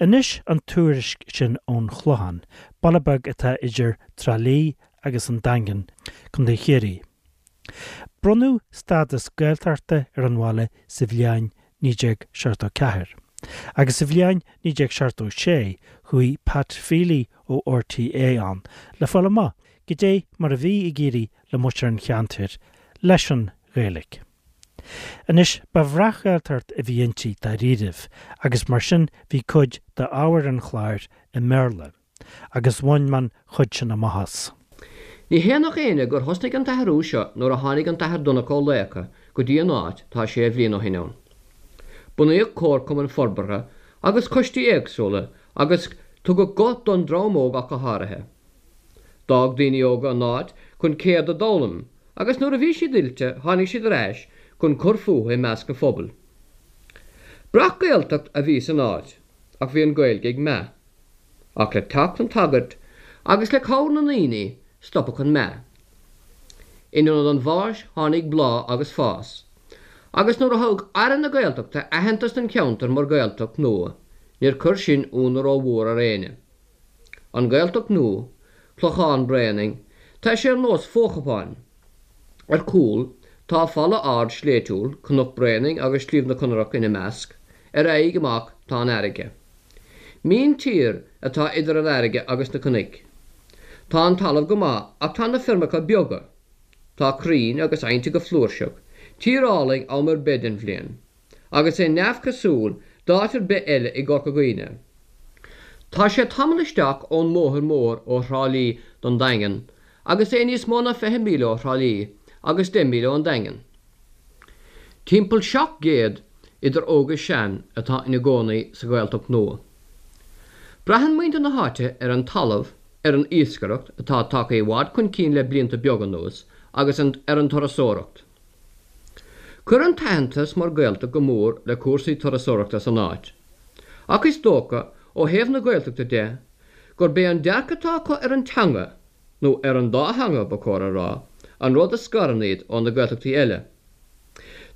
Anois an tuairisc sin ón Chlochán, baile beag atá idir Trá Lí agus an Daingean, Contae Chiarraí. Bronnadh stádas Gaeltachta ar an bhaile sa bhliain 1974, agus sa bhliain 1976 chuaigh Pat Feely ó RTÉ ann le fáil amach goidé mar a bhí ag éirí le muintir an cheantair leis an Ghaeilge. Anois, ba bhreac-Ghaeltacht a bhí inti dáiríribh agus mar sin bhí cuid d'ábhar an chláir i mBéarla. Agus bhain mé an chuid sin amach as. Ní hionadh éinne gur thosnaigh an t-athrú seo nuair a tháinig an tAthair Donncha Ó Laochdha go dtí an áit tá sé bhliain ó shin ann. Bunaíodh comharchumann forbartha agus coistí éagsúla agus tugadh guth don dream óg ach go háirithe. D'fhág daoine óga an áit chun ceird a d'fhoghlaim agus nuair a bhí siad oilte tháinig siad ar ais chun cur fúthu i measc an phobail. Breac-Ghaeltacht a bhí san áit ach bhí an Ghaeilge ag meath. Ach le teacht an tsagairt agus le cabhair na ndaoine stopadh an meath. In ionad an bháis tháinig bláth agus fás. Agus nuair a thug Aire na Gaeltachta aitheantas don cheantar mar Ghaeltacht nua níor chuir sin ionadh rómhór ar éinne. An Ghaeltacht nua, Clochán Bréanainn, tá sé ar nós fo-chupáin. Ar cúl tá falla ard sléibhtiúil, Cnoc Bréanainn agus Sliabh na Conrach ina measc, ar aghaidh amach tá an fharraige. Míntír atá idir an fharraige agus na cnoic. Tá an talamh go maith ach tá na feirmeacha beaga. Tá crainn agus aibhneacha go flúirseach, tír álainn am ar bith den bhliain, agus é neamhchosúil d'áit ar bith eile i gCorca Dhuibhne. Tá sé tamall isteach ón mbóthar mór ó Thrá Lí don Daingean agus é níos mó ná 20 míle ó Thrá Lí agus 10 míle ón Daingean. Timpeall 700 idir óg is sean atá ina gcónaí sa Ghaeltacht nua. Braitheann muintir na háite ar an talamh, ar an iascaireacht, atá tagtha i bhfad chun cinn le blianta beaga anuas, agus ar an turasóireacht. Chuir an t-aitheantas mar Ghaeltacht go mór le cúrsaí turasóireachta san áit. Ach is dócha, ó thaobh na Gaeltachta de, gurb é an dearcadh atá acu ar an teanga, nó ar an dá theanga, ba chóir a rá, an rud a scarann iad ó na Gaeltachtaí eile.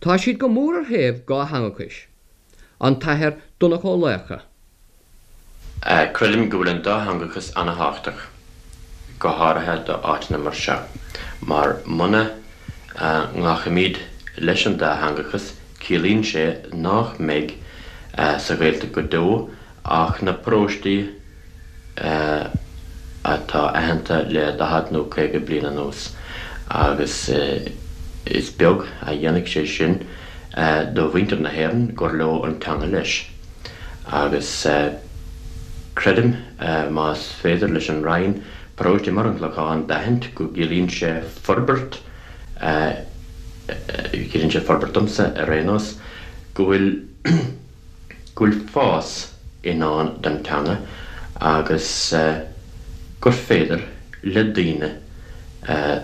Tá siad go mór ar thaobh dhátheangachais. An tAthair Donncha Ó Laochdha. Creidim go bhfuil an dátheangachas ana-thábhachtach, go háirithe do áiteanna mar seo, mar muna nglacaimid leis an dátheangachas, ciallaíonn sé nách mbeidh sa Ghaeltacht go deo ach na paróistí atá aitheanta le 40 nó 50 bliain anuas agus is beag a dhéanfaidh sé sin do mhuintir na hÉireann gur leo an teanga leis. Agus creidim más féidir leis an Roinn paróiste mar an Clochán d'aithint go gciallaíonn sé forbairt, ciallaíonn sé forbairt domsa ar aon nós, go bhfuil. go bhfuil fás i ndán don teanga agus gur féidir le daoine,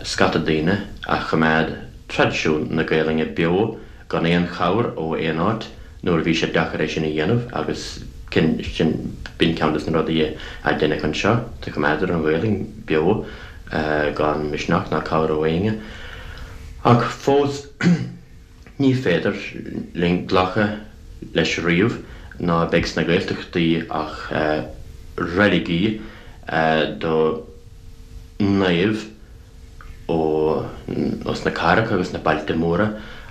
scata daoine, a choimeád traidisiún na Gaelainne beo gan aon chabhair ó aon áit nuair a bhí sé deacair é sin a dhéanamh agus sin, b'in ceann des na rudaí a deineadh anseo, do choimeádadar an Ghaelainn beo gan misneach ná cabhair ó éinne. Ach fós. Ní féidir linn glacadh leis riamh ná beidh sna Gaeltachtaí ach reiligí do naoimh ó sna cathracha agus na bailte móra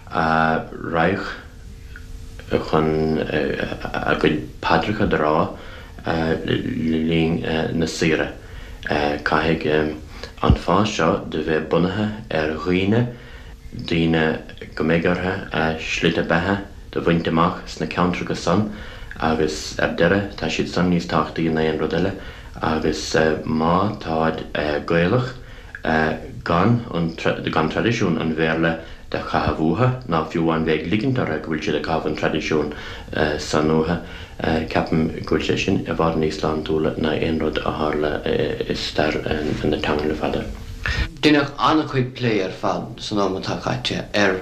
a raghadh chun a gcuid paidreacha do rá le linn na saoire. Caithfidh an fás seo do bheith bunaithe ar dhaoine. daoine go mbeidh orthu a slite beatha do bhaint amach sna ceantracha san agus ar deireadh tá siad san níos tábhachtaí ná aon rud eile agus má táid Gaelach gan an gan traidisiún an Bhéarla do chaitheamh uathu ná fiú amháin bheith ag ligint orthu go bhfuil siad ag caitheamh an traidisiún san uathu ceapaim go bhfuil sé sin i bhfad níos sláintiúla ná aon rud a tharla i stair na teangan le fada. Deineadh an-chuid plé ar fad san am atá caite ar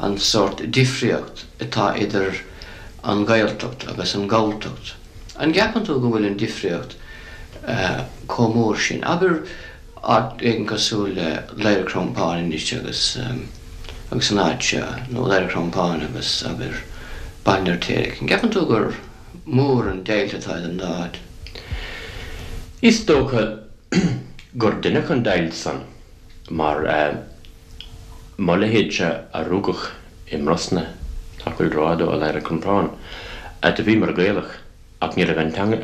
an sórt difríocht atá idir an Ghaeltacht agus an Ghalltacht. An gceapann tú go bhfuil an difríocht chomh mór sin? Abair áit éigin cosúil le Laoire Crompáin anois agus agus an áit seo, nó Laoire Crompáin agus abair Baile an Fheirtéaraigh. An gceapann tú gur. Mór an deighilt atá idir an dá áit. Is dócha gur deineadh an deighilt san mar mo leithéidse a rugadh i mBrosna, nach bhfuil rófhada ó Lathair an Chromtán, do bhíomar Gaelach ach ní raibh an teanga,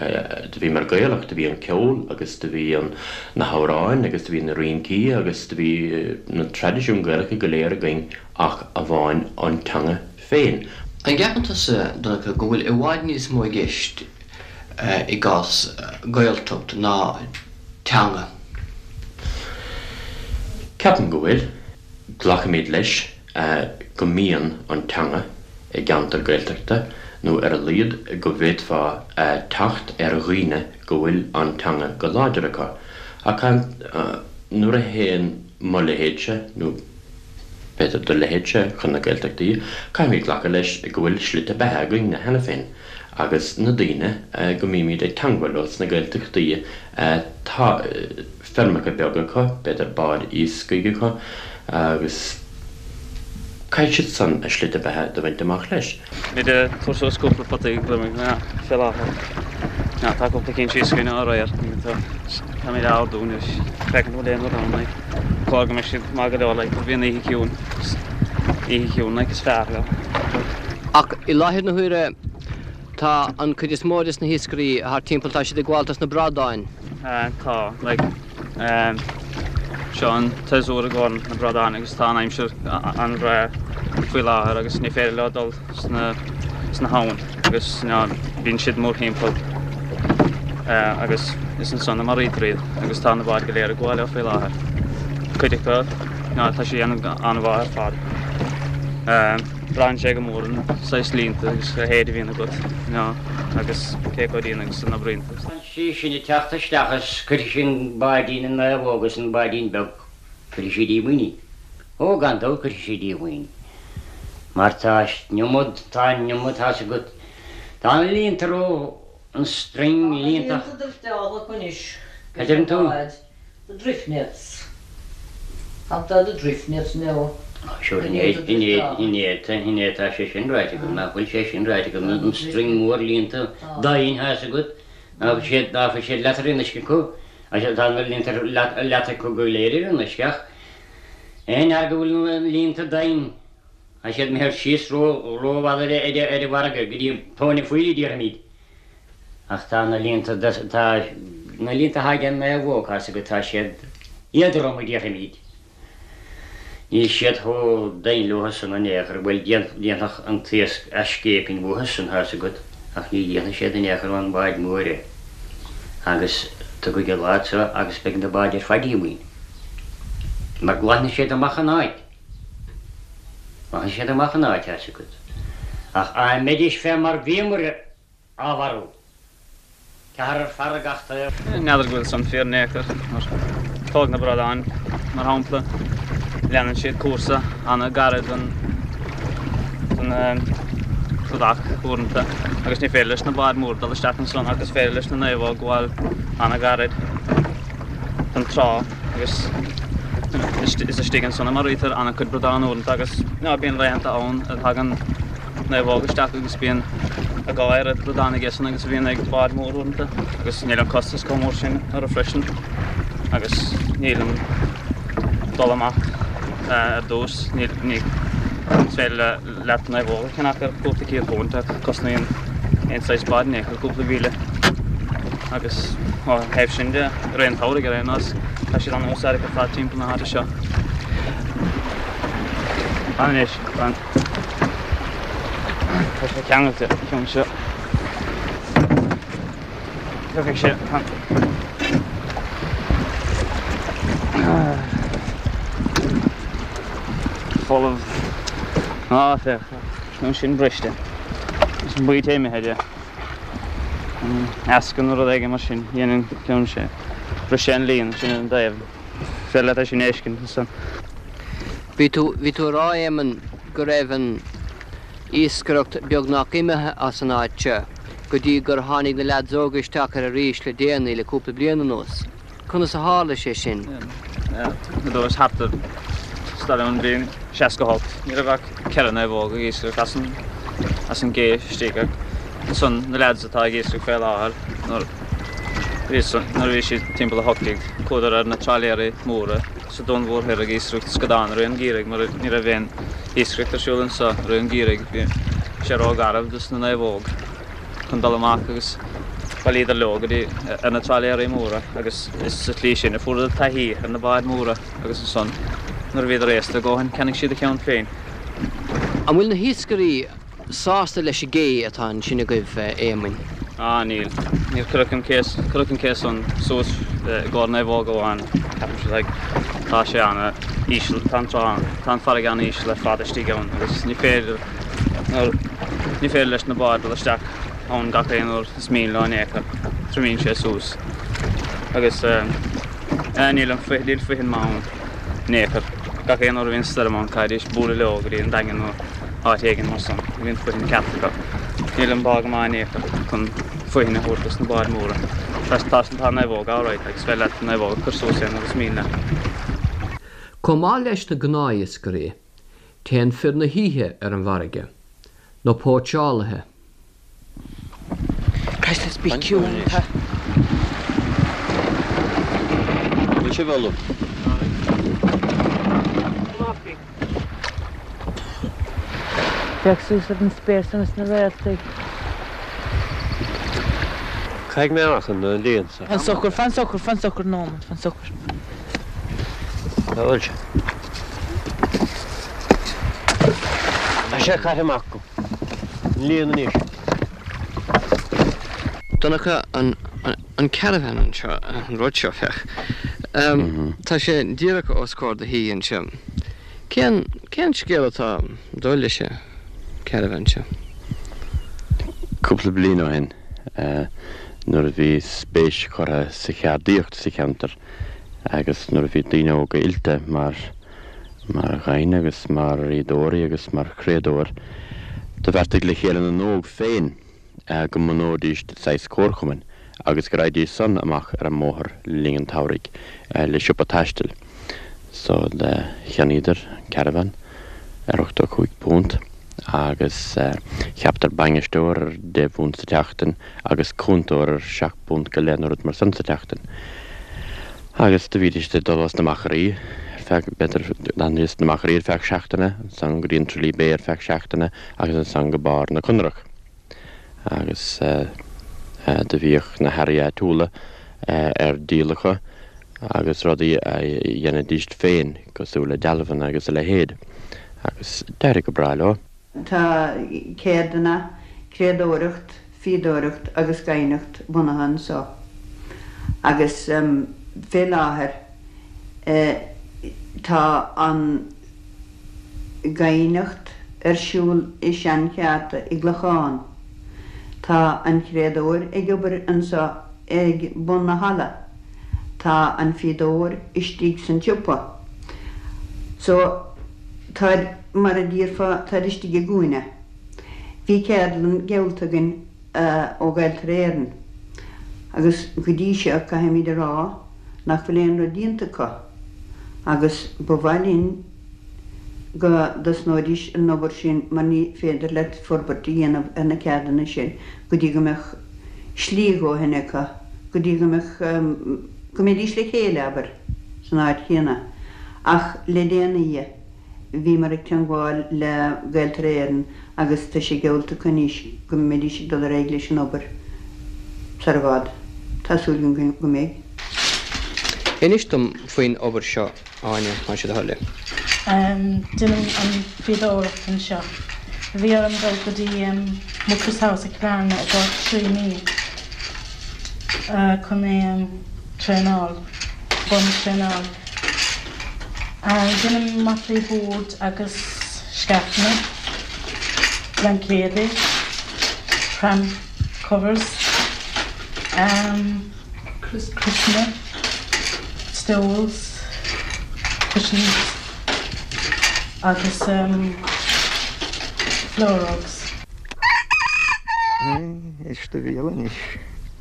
do bhíomar Gaelach, do bhí an ceol agus do bhí an, na hamhráin agus do bhí na rincí agus do bhí na traidisiúin Gaelacha go léir againn ach amháin an teanga féin. An gceapann tusa, Donncha, go bhfuil i bhfad níos mó i gceist i gcás Gaeltacht ná teanga? Ceapaim go bhfuil. Glacaimid leis go mbíonn an teanga i gceantar Gaeltachta, nó ar a laghad go bhféadfá teacht ar dhaoine go bhfuil an teanga go láidir acu. Ach nuair a théann mo leithéidse, nó b'fhéidir do leithéidse, chun na Gaeltachtaí, caithfimid glacadh leis go bhfuil slite beatha againne cheana féin agus na daoine go mbímid ag teangmháil leo sna Gaeltachtaí, tá feirmeacha beaga acu, b'fhéidir báid iascaigh acu agus caithfidh siad san a slite beatha do bhaint amach leis. Táimid ag tabhairt suas cúpla potaí gliomaigh fé láthair. Tá cúpla cinn síos againn ó aréir. Táimid á ardú anois. Féachaint an bhfuil aon rud ann like. Cóir go mbeidh siad maith go leor like bhí an oíche ciúin. Oíche chiúin like is fearr leo. Ach i láthair na huaire tá an chuid is mó des na hiascairí thart timpeall tá siad ag gabháil dos na bradáin. Tá like seo an tséasúr i gcomhair na bradáin agus tá an aimsir an-bhreá faoi láthair agus ní féidir leo dul sna sna habhann agus bíonn siad mórthimpeall agus is ansan a maraítear iad agus tá na báid go léir ag gabháil leo faoi láthair. Cuid acu tá siad ag déanamh an-mhaith ar fad. Braitheann sé go mór an saghas líonta agus a leithéid a bhíonn agat agus cé chomh dian agus a n-oibríonn tú. sí sin ag teacht isteach is cuirfidh sí an báidín an naomhóg is an báidín beag, cuirfidh sí díomhaoin í. Ó, gan dabht cuirfidh sí díomhaoin í. Mar tá an iomad, tá an iomad, tá's agat, tá na líonta ró, an string líonta. Tá na líonta drifteála acu anois. Cad deireann tú? The drift nets. Tá the drift nets now. Sure, inné, inné, inné, inné tá sé sin ráite agam, nach bhfuil sé sin ráite agam, an string mór líonta doimhin, tá's agat, ná fuil siad, ná fuil siad leat ar an uisce acu, tá na líonta leat acu go léir ar an uisce ach aon fhear go bhfuil na líonta doimhin, tá siad imithe síos ró, rófhada ar an bhfarraige go dtí tóin an phoill a déarfaimid. Ach tá na líonta, tá na líonta atá ag an naomhóg, tá's agat, tá siad éadrom a déarfaimid. Níl siad chomh doimhin leo san in aon chor, bhuel dhéanfadh an t-iasc a scéipín uathu san, tá's agat, ach ní dhéanfaidh siad in aon chor ón bhád mór é. Agus tiocfaidh an lá seo agus beidh na báid ar fad díomhaoin. Mar glanfaidh siad amach an áit. Glanfaidh siad amach an áit, tá's agat. Ach á mbeidís fé mar bhíomar á mharú. Ceathrar fear ag gach taobh. N'fheadar go bhfuil san fíor in aon chor, mar tóg na bradáin, mar shampla, leanann siad cúrsa an-ghairid don cladach uaireanta agus ní féidir leis na báid móra dul isteach ansan ach is féidir leis na naomhóg gabháil an-ghairid don trá agus is istigh ansan a maraítear an-chuid bradán uaireanta agus bíonn laethanta ann a thagann naomhóg isteach agus bíonn a dhá oiread bradán aige san agus a bhíonn ag bád mór uaireanta agus níl an costas chomh mór sin orthu freisin agus níl an dul amach ar dtús, ní is féidir leat naomhóg a cheannach ar cúpla £100 ach cosnaíonn aon saghas bád in aon chor cúpla mhíle agus ó thaobh sin de, i rith an tsamhraidh ar aon nós, tá siad an-úsáideach ar fad timpeall na háite seo. Anois, Tá sé ceangailte, an ceann seo. Tiocfaidh sé an folamh. Á, féach, an ceann sin briste. Is an baoite imithe de. Eascann nó rud éigin mar sin, dhéanann ceann sé. Bhris sé an líon sin ar an dtaobh. Féidir leat é sin a fheiscint ansan. Bhí tú, bhí tú a rá, Éamonn, go raibh an iascaireacht beagnach imithe as an áit seo go dtí gur tháinig na leaids óga isteach air arís le déanaí, le cúpla bliain anuas. Conas a tharla sé sin? Nuair thart ar stair an bhliain 68, ní raibh ach 4 naomhóg ag iascaireacht as an, as an gcé istigh ach. Ansan na leaids atá ag iascach fé láthair nuair bhí nuair a bhí siad timpeall 18 chuadar ar na trálaeirí móra sa Dún Mhór Thoir ag iascaireacht scadán i rith an gheimhridh mar ní raibh aon iascaireacht ar siúl anso i rith an gheimhridh. Bhí sé ró-gharbh dos na naomhóg chun dul amach agus bhailíodar leo go dtí ar na trálaeirí móra agus is sa tslí sin a fuaireadar taithí ar na báid mhóra agus ansan nuair a bhíodar aosta a dhóthain cheannaigh siad a cheann féin. An bhfuil na hiascairí sásta leis an gcé atá ansin agaibh, a Éamoinn? Ah, níl. Níor cuireadh an cé, cuireadh an cé san suas i gcomhair naomhóg amháin, ceapaimse, like, tá sé ana íseal, tá an trá, tá an farraige ana íseal ar fad istigh ann agus ní féidir, ní féidir leis na báid dul isteach ann gach aon uair is mian leo in aon chor, triomaíonn sé suas agus eh, níl an, níl faighinn maith ann in aon chor. Gach aon uair a bhíonn stoirm ann caithfidís bualadh leo go dtí an Daingean nó áit éigin mar san, ní bhíonn faighinn ceart acu. Níl an bá go maith in aon chor chun faighinn a thabhairt dos na báid mhóra. Tá, tá, tá an naomhóg alright agus féidir leat an naomhóg a chur suas aon uair is mian leat. Chomh maith leis na gnáthiascairí, téann fir na hoíche ar an bhfarraige, na póitseálaithe. Christ, let's be ciúin. Tá. Bhfuil sibh ullamh? Féach suas ar an spéir san is na réaltaí. Caithfidh mé amach an líon seo. Fan socair, fan socair, fan socair nóiméad, fan socair. Cá bhfuil sé? Tá sé caite amach agam. An líon anois. Donncha, an, an caravan anseo, an rud seo, féach. Tá sé díreach os comhair do thí anseo. Cén, cén scéal atá ag dul leis an caravan seo? Cúpla bliain ó shin, nuair a bhí spéis curtha sa cheardaíocht sa cheantar agus nuair a bhí daoine óga oilte mar mar ghaibhne agus mar fhíodóirí agus mar chriadóir, do bheartaigh le chéile na n-óg féin go mbunóidís saghas comharchumainn agus go raghaidís san amach ar an mbóthar le linn an tsamhraidh le siopa taistil. So do cheannaíodar caravan ar £85 agus cheapadar bainisteoir ar deich bpunt sa tseachtain agus cúntóir ar sheacht bpunt go leith nó rud mar san sa tseachtain. Agus do bhídís ag dul as na Machairí ar feadh, b'fhéidir, d'fhanaidís sna Machairí ar feadh seachtaine, ansan go dtí an Tralee Bay ar feadh seachtaine agus ansan go barr na Conrach. Agus do bhíodh na hearraí áitiúla ar díol acu agus rudaí a dheinidíst féin cosúil le dealbhanna agus a leithéid. Agus d'éirigh go breá leo. Tá ceirdeanna, criadóireacht, fíodóireacht agus gaibhneacht bunaithe anso agus fé láthair tá an ghaibhneacht ar siúl i seancheárta i gClochán. Tá an criadóir ag obair anso ag bun na halla. Tá an fíodóir istigh san tsiopa. So, táid, mar a déarfá, táid istigh i gcúinne. Bhí ceardlann geallta againn ó Ghaeltarra Éireann agus go dtí seo caithfimid a rá nach bhfuil aon rud déanta acu agus ba mhaith linn go dtosnóidís an obair sin mar ní féidir leat forbairt a dhéanamh ar na ceardanna sin go dtí go mbeadh slí a dhóthain acu, go dtí go mbeadh, go mbeidís le chéile, abair, san áit chéanna. Ach le déanaí. Bhíomar ag teangmháil le Gaeltarra Éireann agus tá sé geallta acu anois go mbeidís ag dul ar aghaidh leis an obair sar i bhfad. Tá súil agam go mbeidh. Inis dom faoin obair seo, Áine, más é do thoil é. Déanaim an fíodóireacht anseo. Bhí orm dul go dtí Mucris House i Cill Airne i gcomhair 3 mí chun traenáil, bun-traenáil. Déanaim mataí boird agus scaifeanna, blaincéadaí, pram covers, criosanna, stoles, cushions agus floor rugs. Éist do bhéal anois.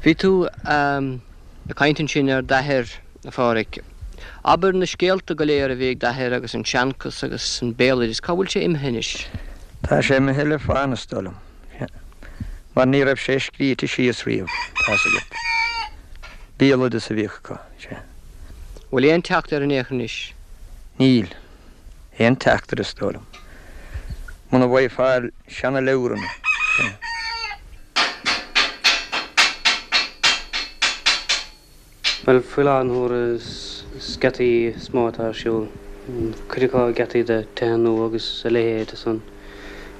Bhí tú ag caint ansin ar d'athair. A Phádhraic, abair na scéalta go léir a bhí ag d'athair agus an seanchas agus an béaloideas, cá bhfuil sé imithe anois? Tá sé imithe le fána is dóigh liom. Mar ní raibh sé scríte síos riamh, tá's agat. Béaloideas a bhíodh acu, sea. Bhfuil aon teacht air in aon chor anois? Níl. Aon teacht air is dóigh liom. Muna bhfaighfeá seana-leabhranna, sea. Bhuel, faoi láthair na huaire is geataí is mó atá ar siúl. Cuid acu geataí do tithe nua agus a leithéid san.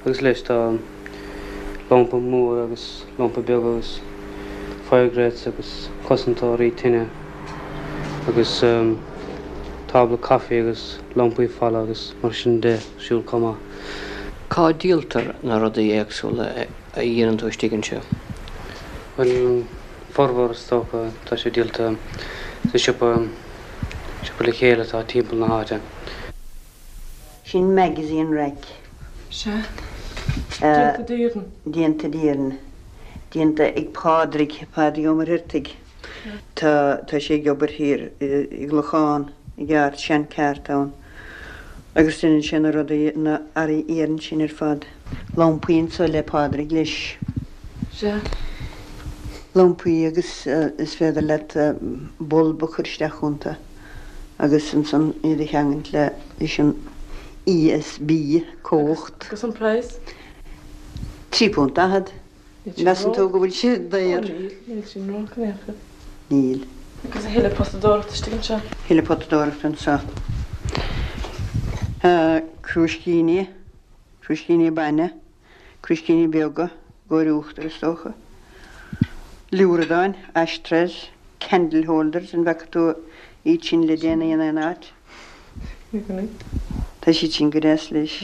Agus leis tá lampa mór agus lampa beag agus fire grates agus cosantóirí tine agus tábla caife agus lampaí falla agus mar sin de ar siúl chomh maith. Cá díoltar na rudaí éagsúla a dhéanann tú istigh anseo? Bhuel, Formhór is dócha tá sé díolta sa siopa, siopa le chéile atá timpeall na háite. Sin magazine rack. Sea. Déanta d'Éirinn. Déanta d'Éirinn. Déanta ag Pádraig, Pádraig Ó Muircheartaigh. Tá, tá sé ag obair thiar i gClochán, i gceárt, seancheárt ann. Agus déanann sé na rudaí, na earraí iarainn sin ar fad. Lampaí anso le Pádraig leis. Sea. Lampaí agus is féidir leat bulb a chur isteach iontu agus ansan iad a cheangailt le leis an ESB, cumhacht. Agus an praghas? £3.40. Measann tú go bhfuil sé daor? Ó níl, níl sin ró-ard in aon chor. Níl. Agus a thuilleadh potadóireachta istigh anseo? Thuilleadh potadóireachta anseo. Crúiscíní, crúiscíní bainne, crúiscíní beaga, i gcomhair uachtar is dócha. Liúradáin, ashtrays, candle holders, an bhfaca tú iad sin le déanaí in aon áit? Tá siad sin go deas leis.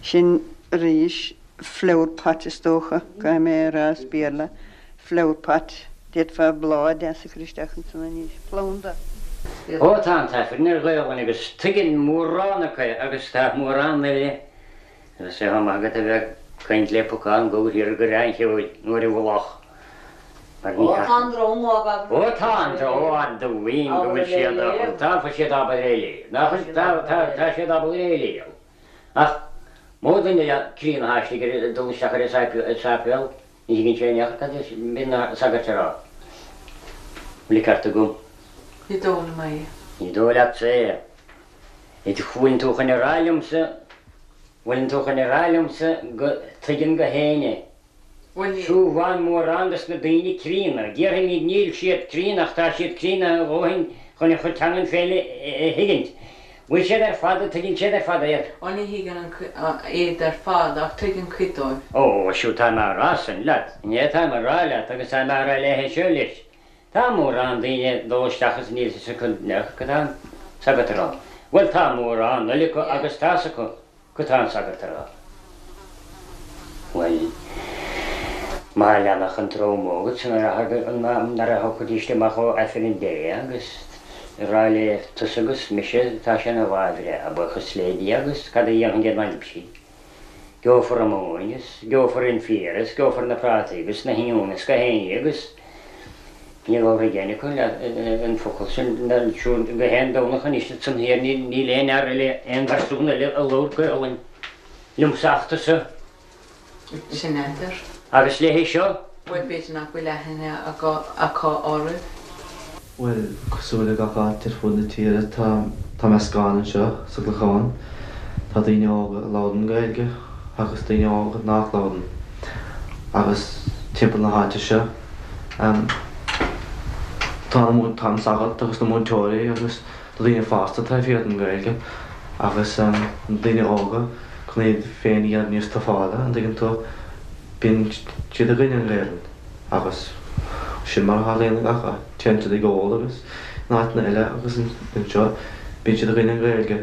Sin arís flower pot is dócha, caithfidh mé a rá as Béarla, flower pot, d'fhéadfá bláth deas a chur isteach ansan anois, planda. Ó tá an tAifreann ar Ghaolainn agus tuigeann mórán acu é agus tá mórán eile Agus é chomh maith agat a bheith ag caint le pocán gabhair thiar i gCoireán an Cheoil nó ar an Mhullach mar ní Ó tá an drong á gabháil. Ó tá an drong á dtuigim go bhfuil siad á tá fuil siad ábalta é a léamh. Nach bhfuil tá tá tá siad ábalta é a léamh. Ach mó duine le críonna atá istigh ar dul isteach ar an sáipéal ní thuigeann sé in aon chor cad a bhíonn na sagairt a rá. Bhfuil an ceart agam? Ní dóigh liom é. Ní dóigh leatsa é. Bhfuileann tú chun a rá liomsa, bhfuileann tú chun a rá liomsa go dtuigeann gach éinne? Bhuel níl. Siubhán mórán dos na daoine críonna, déarfaimíd níl siad críonna ach tá siad críonna a dhóthain chun a chuid teangan féin a thuigint. Bhfuil siad ar fad, an dtuigeann siad ar fad iad? Ó ní thuigeann iad ar fad ach tuigeann cuid dóibh. Ó, siúd tá mé a rá san leat, inné tá mé a rá leat agus tá mé a rá léithe seo leis. Tá mórán daoine ag dul isteach is níl fhios acu cad tá an sagart a rá. Bhuel tá mórán eile acu agus tá's acu cad tá an sagart a rá. Bhuel, má leanfadh an dream óg san nuair a thiocfaidís amach ó Aifreann Dé agus a rá le tusa agus mise tá sé ina lá bhreá, buíochas le Dia agus cad a dhéanfainn dá mbeinn libhse? Gheofar an mhóin is gheofar an féar is gheofar na prátaí agus na hoinniúin is gach aon ní agus ní labharfaidh éinne acu an focal sin siúd gach aon Domhnach anois ansan thiar níl aon fhear eile aon phearsún eile a labhair Gaolainn liomsa ach tusa. Sin é. Agus léi seo. Bhuel b'fhéidir nach bhfuil aithne acu oraibh. Bhuel, cosúil le gach áit ar fud na tíre, tá tá meascán anseo sa gClochán. Tá daoine óga a labhrann Gaeilge agus daoine óga nach labhrann. Agus timpeall na háite seo, tá na tá an sagart agus na múinteoirí agus na daoine fásta taobh thiar den Ghaeilge agus na daoine óga chun iad féin a dhéanamh níos tufála, an dtuigeann tú, bíonn siad i gcoinne an Ghaelainn. Agus sin mar a tharlaíonn i ngach áit. Téann siad ag ól agus in áiteanna eile agus anseo bíonn siad i gcoinne an Ghaeilge.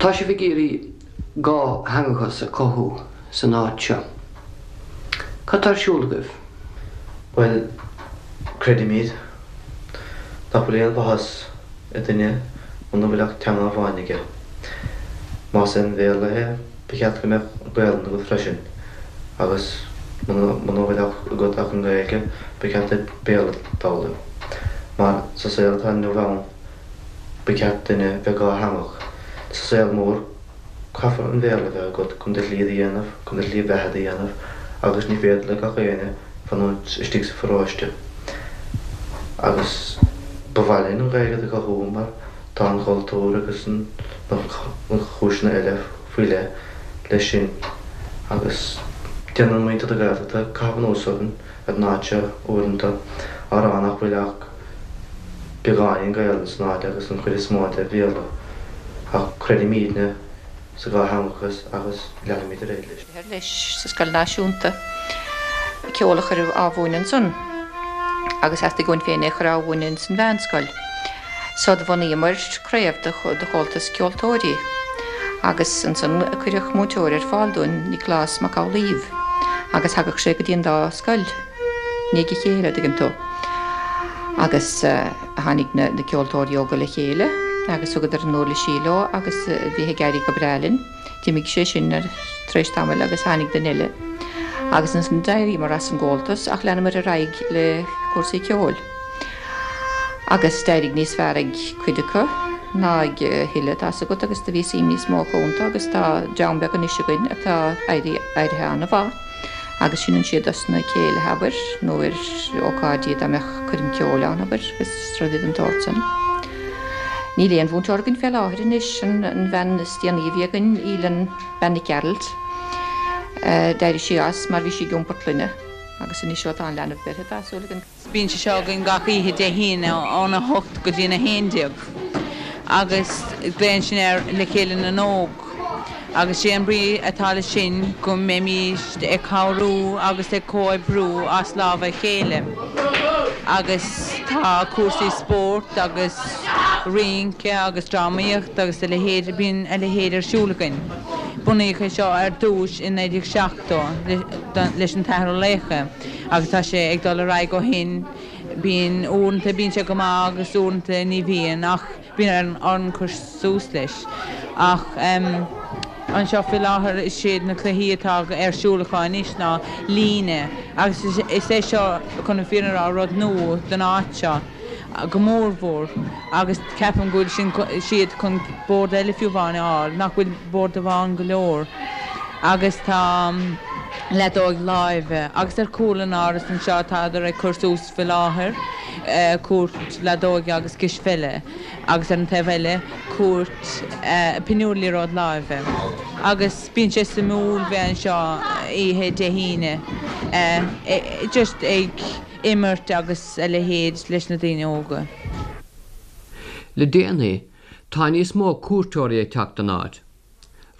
Tá sibh ag iarraidh dátheangachas a chothú san áit seo. Cad tá ar siúl agaibh? Bhuel, creidimid nach bhfuil aon mhaitheas i nduine muna bhfuil ach teanga amháin aige. Más é an Bhéarla é, Ba cheart go mbeadh Gaelainn agat freisin agus muna bhfuil agat ach an Ghaeilge, ba cheart duit Béarla d'fhoghlaim. Mar sa saol atá inniu ann, ba cheart duine bheith dhátheangach. Sa saol mór, Caithfear an Bhéarla a bheith agat chun do shlí a dhéanamh, chun do shlí bheatha a dhéanamh agus ní féidir le gach éinne fanúint istigh sa pharóiste. Agus ba mhaith linn an Ghaeilge do chothú mar tá an chultúr agus na chúiseanna eile faoi leith leis sin agus déanann muintir na Gaeltachta caitheamh anuas orainn ar an áit seo uaireanta á rá nach bhfuil ach beagáinín Gaelainn san áit agus an chuid is mó de Bhéarla ach creidimídne sa dhátheangachas agus leanfaimid ar aghaidh leis. leis sa scoil náisiúnta, ceol a chur á mhúineadh ansan agus theastaigh uainn féin é a chur á mhúineadh ins an mheánscoil. So do bhunaíomar craobh de Chomhaltas Ceoltóirí agus ansan cuireadh múinteoir ar fáil dúinn, Nioclás Mac Amhlaoibh, agus thagadh sé go dtí an dá scoil i ndiaidh a chéile, a dtuigeann tú. Agus tháinig na ceoltóirí óga le chéile agus thugadar a n-uirlisí leo agus bhí ag éirí go breá linn. D'imigh sé sin tar éis tamaill agus tháinig duine eile agus ansan d'éiríomar as an gComhaltas ach leanamar ar aghaidh le cúrsaí ceoil. Agus d'éirigh níos fearr ag cuid acu ná ag a thuilleadh, tá's agat, agus do bhí suim níos mó acu iontu agus tá dream beag anois againn atá éirithe an-mhaith agus seinneann siad dos na céilithe, abair, nó ar ócáidí dá mbeadh coirm ceoil ann, abair, agus rudaí den tsórt san. Níl aon mhúinteoir againn fé láthair anois, an bhean is déanaí a bhí againn, Aoileann Bean Nic Gearailt, d'éirigh sí as mar bhí sí ag iompar clainne agus anois ó tá an leanbh beirthe tá súil againn Bíonn sé seo againn gach oíche Dé hAoine óna hocht go dtí an 11 agus glaonn sin air Le Chéile na nÓg agus sé an brí atá leis sin go mbeimíst ag cabhrú agus ag comhoibriú as lámha a chéile agus tá cúrsaí spóirt agus rince agus drámaíocht agus a leithéid, bíonn a leithéid ar siúl againn. Bunaíodh é seo ar dtús i 1970 leis an t-Athair Ó Laochdha. Agus tá sé ag dul ar aghaidh ó shin. Bíonn, uaireanta bíonn sé go maith agus uaireanta ní bhíonn ach bíonn orainn cur suas leis. Ach anseo faoi láthair is iad na cluichí atá ar siúl acu anois ná líne agus is é seo chun an fírinne a rá rud nua don áit seo go mór mhór agus ceapaim go bhfuil sin siad chun bord eile fiú amháin a fháil, nach bhfuil bord amháin go leor agus tá leadóig láimhe agus ar chúl an áras anseo tádar ag cur suas faoi láthair cúirt leadóige agus cispheile agus ar an taobh eile cúirt pinniúr liathróid láimhe agus bíonn sé suimiúil bheith anseo oíche Dé hAoine just ag imirt agus a leithéid leis na daoine óga. Le déanaí, tá níos mó cuairteoirí ag teacht don áit.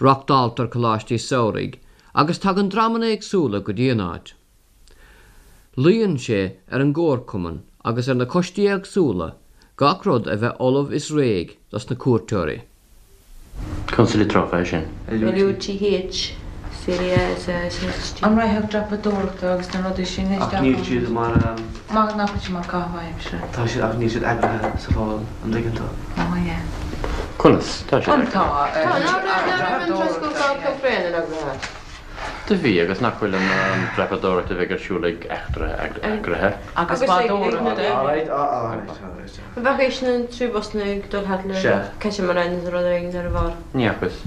Reáchtáiltear coláistí samhraidh agus tagann dreamanna éagsúla go dtí an áit. Luíonn sé ar an gcomharchumann agus ar na coistí éagsúla gach rud a bheith ullamh is réidh dos na cuairteoirí. Conas a litreofa é sin? LUTH CDS SHT. An rachadh dreapadóireachta agus na rudaí sin Ach isteach níl ann? siad mar. Maith nach bhfuil siad mar caitheamh aimsire. Tá siad ach níl siad eagraithe sa Pholl, an dtuigeann tú? Ó yeah. Conas? Tá siad An eagraithe. tá Tá, ná raibh ná raibh an troscán Kilfrane eagraithe? Do bhí, agus nach bhfuil an dreapadóireacht a bheidh ar siúl ag Eachtra eagraithe? Agus bádóireacht. Alright, alright, alright. An bhfaca sin an triú busanna ag dul thart le Sea. catamarans nó rud éigin ar a bharr? Ní fhacas.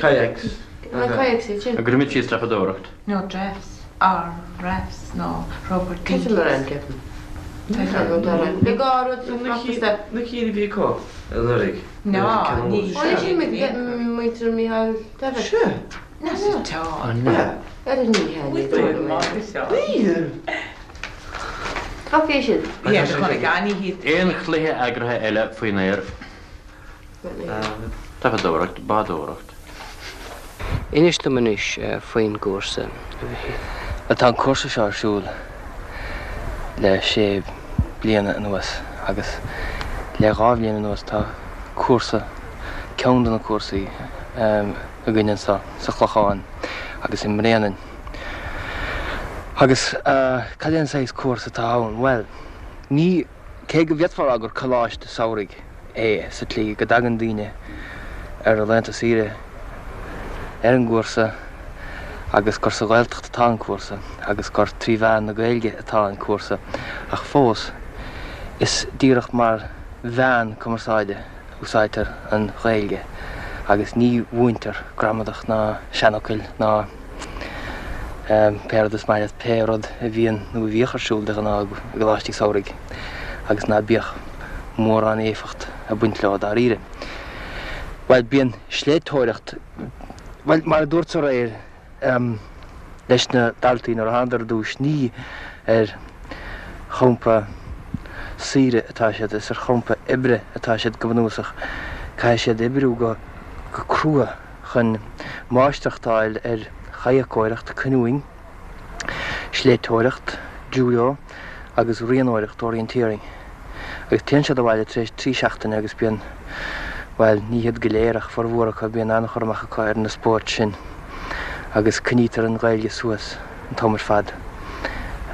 Kayaks. Na kayaks iad sin. An gcuirfimid síos dreapadóireacht? Nó drafts, or rafts nó rubber dinkies. Catamaran, ceapaim. Le gá rud sa phracas Na cinn a bhí acu anuraidh. Ná, ní. Ó ní sin muintir Mícheál Davitt. Sea. Ná sa tá. Ar an ní hea. Níl. Bhfaca siad. Aon chluiche eagraithe eile faoin aer? Dreapadóireacht, bádóireacht. Inis dom anois faoin gcúrsa, a Mhichíl. Bhuel, tá an cúrsa seo ar siúl le sé bliana anuas agus le dhá bhliain anuas tá cúrsa, ceann de na cúrsaí, againn anseo sa Chlochán agus i mBréanainn. Agus cad é an saghas cúrsa atá ann? Bhuel, ní, cé go bhféadfá a rá gur coláiste samhraidh é sa tslí go dtagann daoine ar a laethanta saoire ar an gcúrsa agus gur sa Ghaeltacht atá an cúrsa agus gur trí mheán na Gaeilge atá an cúrsa ach fós is díreach mar mheán cumarsáide a úsáidtear an Ghaeilge. Agus ní mhúintear gramadach ná seanfhocail ná pé rud is maith leat, pé rud a bhíonn nó a bhíodh ar siúl de ghnáth i gcoláistí samhraidh agus ná bíodh mórán éifeacht ag baint leo dáiríre. Bhuel, bíonn sléibhteoireacht, bhuel, mar a dúrt aréir, leis na daltaí nuair a thánadar ar dtús, ní ar champa saoire atá siad, is ar champa oibre atá siad go bunúsach. Caithfidh siad oibriú go crua chun máistreacht a fháil ar chadhacóireacht, canoeing, sléibhteoireacht, judo agus rianóireacht, orienteering. Agus téann siad abhaile tar éis 3 seachtaine agus bíonn, bhuel, ní hiad go léir ach formhór acu, bíonn an-chur amach acu ar na spóirt sin agus coinnítear an Ghaeilge suas an t-am ar fad.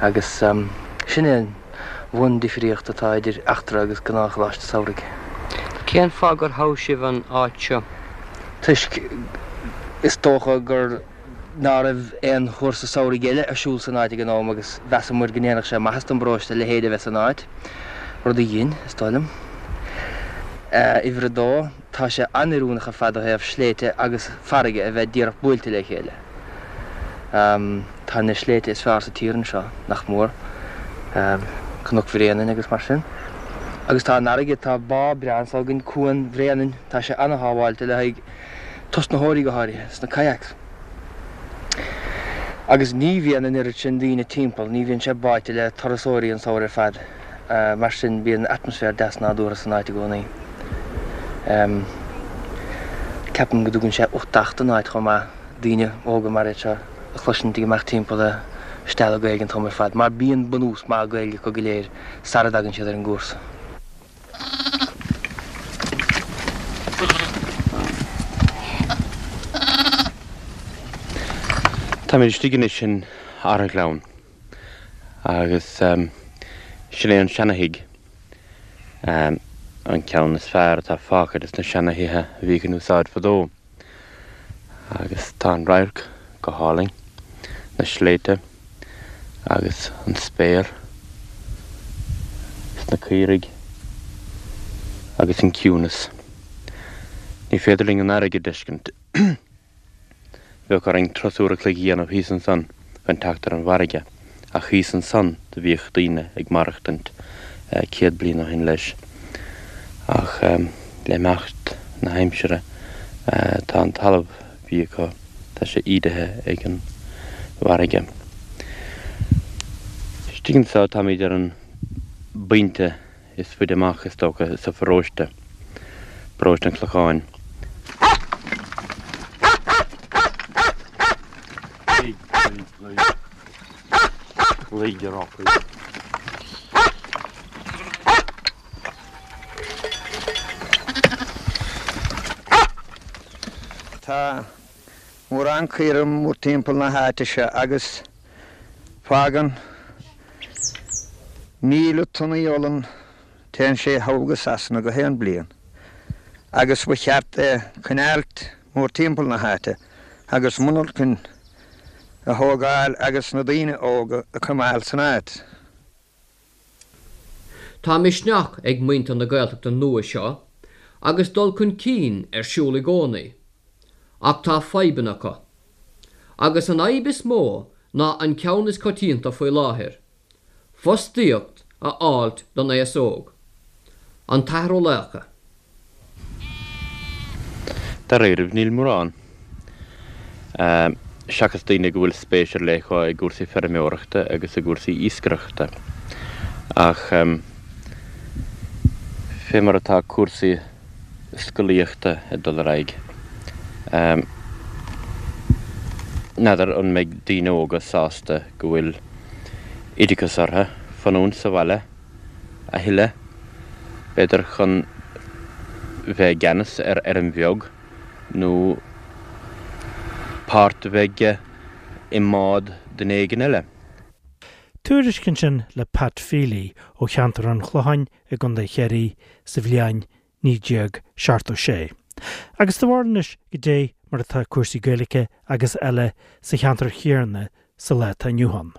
Agus sin é an bhun-difríocht atá idir Eachtra agus gnáthcholáiste samhraidh. Cén fáth gur thogh sibh an áit seo? Toisc, is dócha, gur. ná raibh aon chúrsa samhraidh eile ar siúl san áit ag an am agus mheasamar go ndéanfadh sé maitheas don bparóiste a leithéid a bheith san áit, rud a dhein, is dóigh liom. Uimhir a dó, tá sé an-oiriúnach ar fad ó thaobh sléibhte agus farraige a bheith díreach buailte le chéile. Tá na sléibhte is fearr sa tír anseo, nach mór, Cnoc Bhréanainn agus mar sin. Agus tá an fharraige, tá bá breá anseo againn, Cuan Bhréanainn, tá sé an-shábháilte le haghaidh tosnaitheoirí go háirithe, sna kayaks. Agus ní bhíonn an oiread sin daoine timpeall, ní bhíonn sé báite le turasóirí an samhradh ar fad, mar sin bíonn atmaisféar deas nádúrtha san áit i gcónaí. Ceapaim go dtugann sé uchtach don áit chomh maith, daoine óga mar iad seo a chloisint ag imeacht timpeall ag stealladh Gaeilge an t-am ar fad, mar bíonn bunús maith Gaeilge acu go léir sara dtagann siad ar an gcúrsa. Táimid istigh anois in Arraghleann agus sin é an seana-thigh, an ceann is fearr atá fágtha des na seana-thithe a bhíodh in úsáid fadó. Agus tá an radharc go hálainn, na sléibhte agus an spéir is na caoirigh agus an ciúnas. Ní féidir linn an fharraige a d'fheiscint. Bheadh orainn turas uair a chloig a dhéanamh thíos ansan chun teacht ar an bhfarraige, ach thíos ansan do bhíodh daoine ag maireachtaint 100 bliain ó shin leis. Ach le himeacht na haimsire tá an talamh a bhí acu, tá sé ídithe ag an bhfarraige. Istigh anseo táimid ar an bpointe is faide amach, is dócha, sa pharóiste, Paróiste an Chlocháin. Tá mórán caora mórtimpeall na háite seo agus fágann 1,000 tonnaí olann téann sé thall go Sasana gach aon bliain agus ba cheart é coinneáilt mórtimpeall na háite agus monarchain a thógáil agus na daoine óga a coimeáil san áit. Tá misneach ag muintir na Gaeltachta nua seo agus dul chun cinn ar siúl i gcónaí, ach tá fadhbanna acu. Agus an fhadhb is mó ná an ceann is coitianta faoi láthair, fostaíocht a fháilt don aos óg. An tAthair Ó Laochdha. Dáiríribh, níl mórán. Seachas daoine go bhfuil spéis ar leith acu i gcúrsaí feirmeoireachta agus i gcúrsaí iascaireachta. Ach fé mar atá cúrsaí scolaíochta ag dul ar aghaidh, n'fheadar an mbeidh daoine óga sásta go bhfuil oideachas orthu fanúint sa bhaile a thuilleadh, b'fhéidir chun bheith i gceannas ar fheirm bheag nó páirt a bheith aige i mbád duine éigin eile. Tuairisc ansin le Pat Feely ó cheantar an Chlocháin i gContae Chiarraí sa bhliain 1976. Agus do bharúil anois goidé mar atá cúrsaí Gaeilge agus eile sa cheantar chéanna sa lá atá inniu ann.